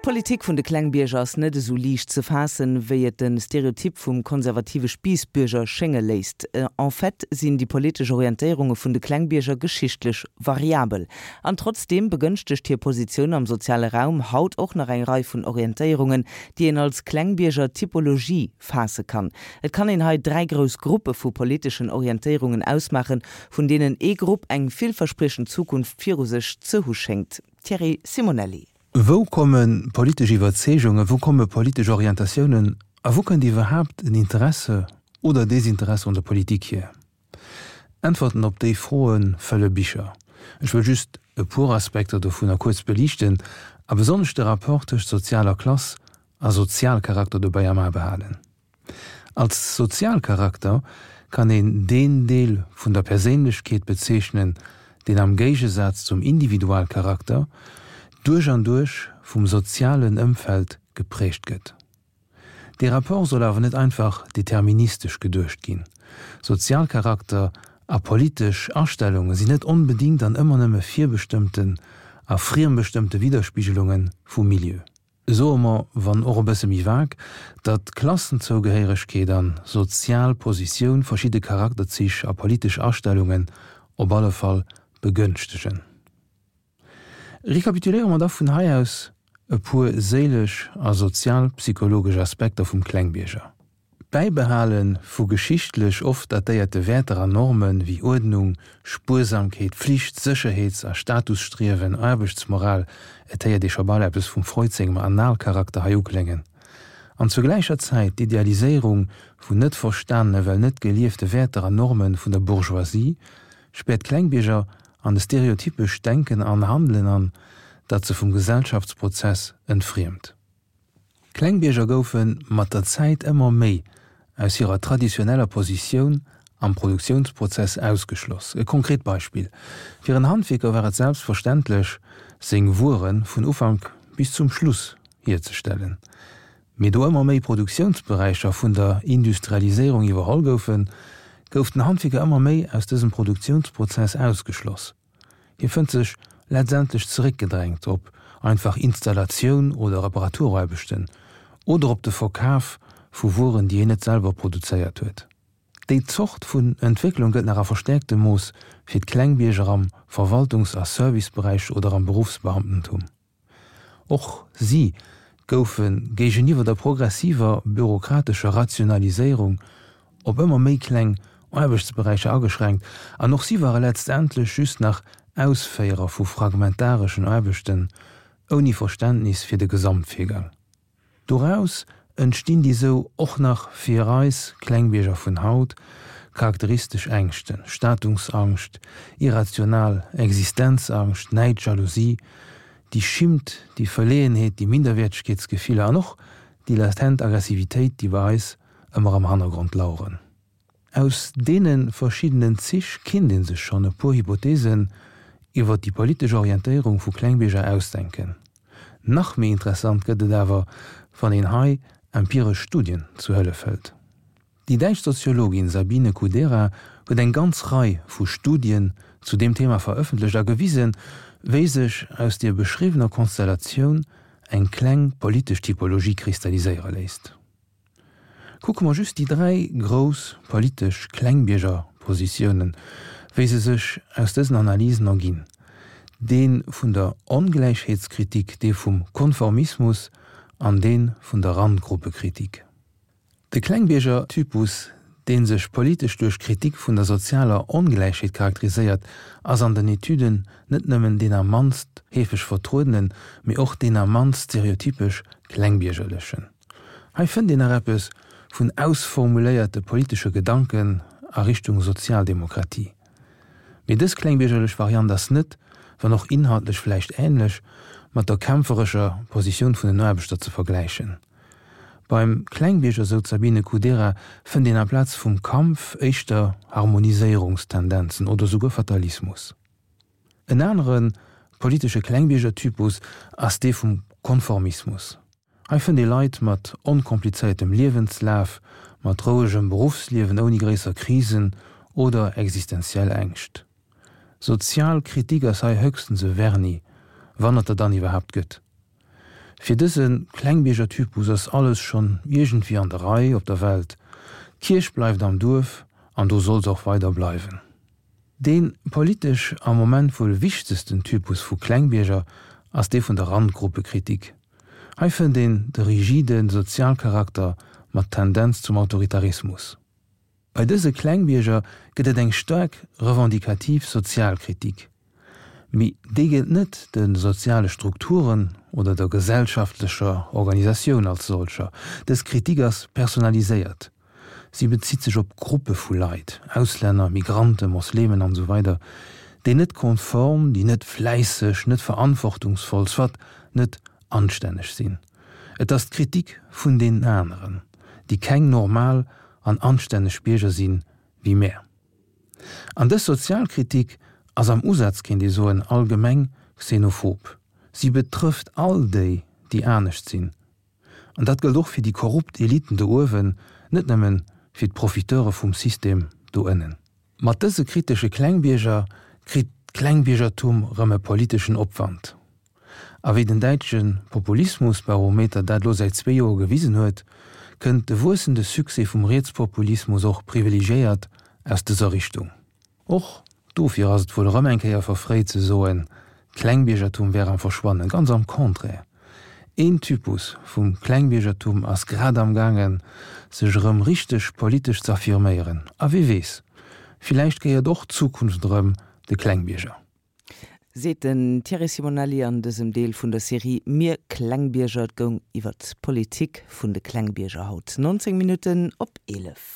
D'Politik vun de Klengbierger ass net esou liicht ze faassen, wéi et de Stereotyp vum konservative Spiissbürger schénge léisst. En fait sinn déi politesch Orientéierunge vun de Klengbierger geschichtlech variabel. An trotzdeem begënschtegt hir Positioun am soziale Raum haut och nach eng Rei vun Orientéierungen, déi een als Klengbierger-Typologie faasse kann. Et kann een hei 3 grouss Gruppe vu politeschen Orientéierungen ausmaachen, vun deenen ee Grupp eng villverspriechend Zukunft viru sech ze hu schéngt. Thierry Simonelli. Wou komme politesch Iwwerzeegungen, wou komme politesch Orientatiounen a wou kënnt iwwerhaapt en Interesse oder Desinteresse un der Politik hier? Äntwerten op déi Froe fëlle Bicher. Ech wëll just e puer Aspekter dovunner kuerz beliichten a besonnesch de Rapport tëscht sozialer Klass a Sozialcharakter dobäi am A behalen. Als Sozialcharakter kann een deen Deel vun der Perséinlechkeet bezeechnen, deen am Géigesaz zum Individualcharakter duerch an duerch vum sozialen Ëmfeld geprägt gëtt. Dee Rapport soll awer net einfach deterministesch geduecht ginn. Sozialcharakter a politesch Astellunge sinn net onbedingt an ëmmer nëmme virbestëmmten a friembestëmmte Widderspigelunge vum Milieu. Soe mer, wann och e bësse méi vag, datt Klassenzougehéieregkeet an sozial Positioun verschidde Charakterzich a politesch Astellungen op alle Fall begënschtegen. Rekapituléiere mer da vun hei aus e puer séilesch a sozialpsychologesch Aspekter vum Klengbierger. D'Bäibehale vu geschichtlech oft datéierte Wäerter an Norme wéi Uerdnung, Spuersamkeet, Flicht, Sécherheets a Statusstriewen, Aarbechtsmoral, et héiert ee scho bal eppes vum Freud sengem Analcharakter hei ukléngen, an zur gläicher Zäit d'Idealiséierung vun net verstanene well net geliefte Wäerter an Norme vun der Bourgeoisie, späert d'Klengbierger an e stereotypescht Denken an Handelen an, dat se vum Gesellschaftsprozess entfriemt. D'Klengbierger goufe mat der Zäit ëmmer méi aus hirer traditioneller Positioun am Produktiounsprozess ausgeschloss. E konkret Beispill, Fir en Handwierker war et selbstverständlech, seng Wuere vun Ufank bis zum Schluss hierzestellen. Mee do ëmmer méi Produktiounsberäicher vun der Industrialiséierung iwwerholl goufen, gouf den Handwierker ëmmer méi aus dësem Produktiounsprozess ausgeschloss. Hie fënnt sech letztendlech zeréckgedrängt op einfach Installatioun oder Reparaturaarbechten oder op de Verkaf vu Wueren, déi hien net selwer produzéiert huet. Déi Zort vun Entwécklung gëllt nach a verstäerktem Mooss fir d'Klengbierger am Verwaltungs a Serviceberäich oder am Beruffsbeamtentum. Och si goufe géigeniwwer der progressiver bürokratescher Rationaliséierung op ëmmer méi kleng Aarbechtsberäicher ageschränkt an och si ware letztendlech just nach Ausféierer vu fragmentareschen Aarbechten ouni Verständnis fir de Gesamtvirgang. Doraus entstinn déi sou och nach fir eis Klengbierger vun haut charakteristesch Ängschten, Statungsangscht, irrational Existenzangscht, Näid, Jalousie, déi Schimmt, déi Verleeënheet, déi Minderwäertegkeetsgefiller an och déi latent Aggressivitéit, déi bei eis ëmmer am Hannergrond laueren. Aus deene verschiddenen Zich kinnt ee sech schonn e puer Hypothesen iwwer déi politesch Orientéierung vu Klengbierger ausdenken. Nach méi interessant gëtt et awer, wann een hei empiresch Studien zu Hëllef hëlt. Déi däitsch Soziologin Sabine Kudera huet eng ganz Rei vu Studien zu deem Thema verëffentlecht a gewisen, wéi sech aus deer beschriwwener Konstellatioun eng kleng politesch Typologie kristalliséiere léisst. Kucke mer just déi 3 grouss politesch Klengbiergerpositiounen, wéi se sech aus dësen Analysen erginn, dee vun der Ongläichheetskritik, dee vum Konformismus an dee vun der Randgruppekritik. De Klengbiergertypus, dee sech politesch duerch d'Kritik vun der sozialer Ongläichheet charakteriséiert, ass an den Etüden net nëmmen deen am mannst heefeg vertruedenen, mee och deen am mannst stereotypesch klengbiergerlechen. Hei fënnt een nach eppes vun ausformuléierte politesche Gedanken a Richtung Sozialdemokratie. Mee dës klengbiergerlech Variant ass net, wann och inhaltlech vläicht änlech, mat der kämpferescher Positioun vun den Aarbechter ze vergläichen. Beim Klengbierger, sou d'Sabine Kudera, fënnt een amplaz vum Kampf éischter Harmoniséierungstendenzen oder souguer Fatalismus. En anere politesche Klengbiergertypus ass dee vum Konformismus. Hei fënnt ee Leit mat onkomplizéiertem Liewenslaf, mat rouegem Beruffsliewen ouni gréisser Krisen oder existenziell Ängscht. Sozial Kritik ass hei höchstens e Vernis, wann et der dann iwwerhaapt gëtt. Fir dëse Klengbierger-Typus ass alles schonn iergendwéi an der Rei op der Welt, d'Kierch bleift am Duerf an do soll se och weider bleiwen. Dee politesch am Moment wuel wichtegsten Typus vu Klengbierger ass dee vun der Randgruppekritik. Hei fënnt een de rigide Sozialcharakter mat Tendenz zum Autoritarismus. Bei dëse Klengbierger gëtt et eng staark revendikativ Sozialkritik. Mee déi gëllt net de soziale Strukturen oder der gesellschaftlecher Organisatioun als solcher. Dës Kritik ass personaliséiert. Si bezitt sech op Gruppe vu Leit, Auslänner, Migranten, Moslemen an esou weider, déi net konform, déi net fläisseg, net verantwortungsvoll, soit net anstänneg sinn. Et ass d'Kritik vun deenen aneren, déi keng normal an anstänneg Bierger sinn, wéi mär. An dës Sozialkritik ass am Usaz, kéint ee soen, allgemeng xenophob. Si betrëfft all déi, déi anescht sinn. An dat gëllt och fir déi korrupt Eliten do uewen, net nëmmen fir d'Profiteure vum System do ënnen. Mat dëse kritesche Klengbierger kritt d'Klengbiergertum rëm e politeschen Opwand. A wéi den däitsche Populismusbarometer dat lo säit zwee Joer gewisen huet, kënnt de wuessende Succès vum Rietspopulismus och privilegiéiert aus dëser Richtung. Och dofir ass et wuel erëm eng Kéier verfréit ze soen, d'Klengbiergertum wär am Verschwannen. Ganz am Contraire, een Typus vum Klengbiergertum ass grad am gaangen, sech erëm richteg politesch z'affirméieren. A wie weess, villäicht gehéiert och d'Zukunft erëm de Klengbierger. Seet den Thierry Simonelli an dësem Deel vun der Serie Mir Klengbierger. Et goung iwwer d'Politik vun de Klengbierger haut. 19 Minutten op 11.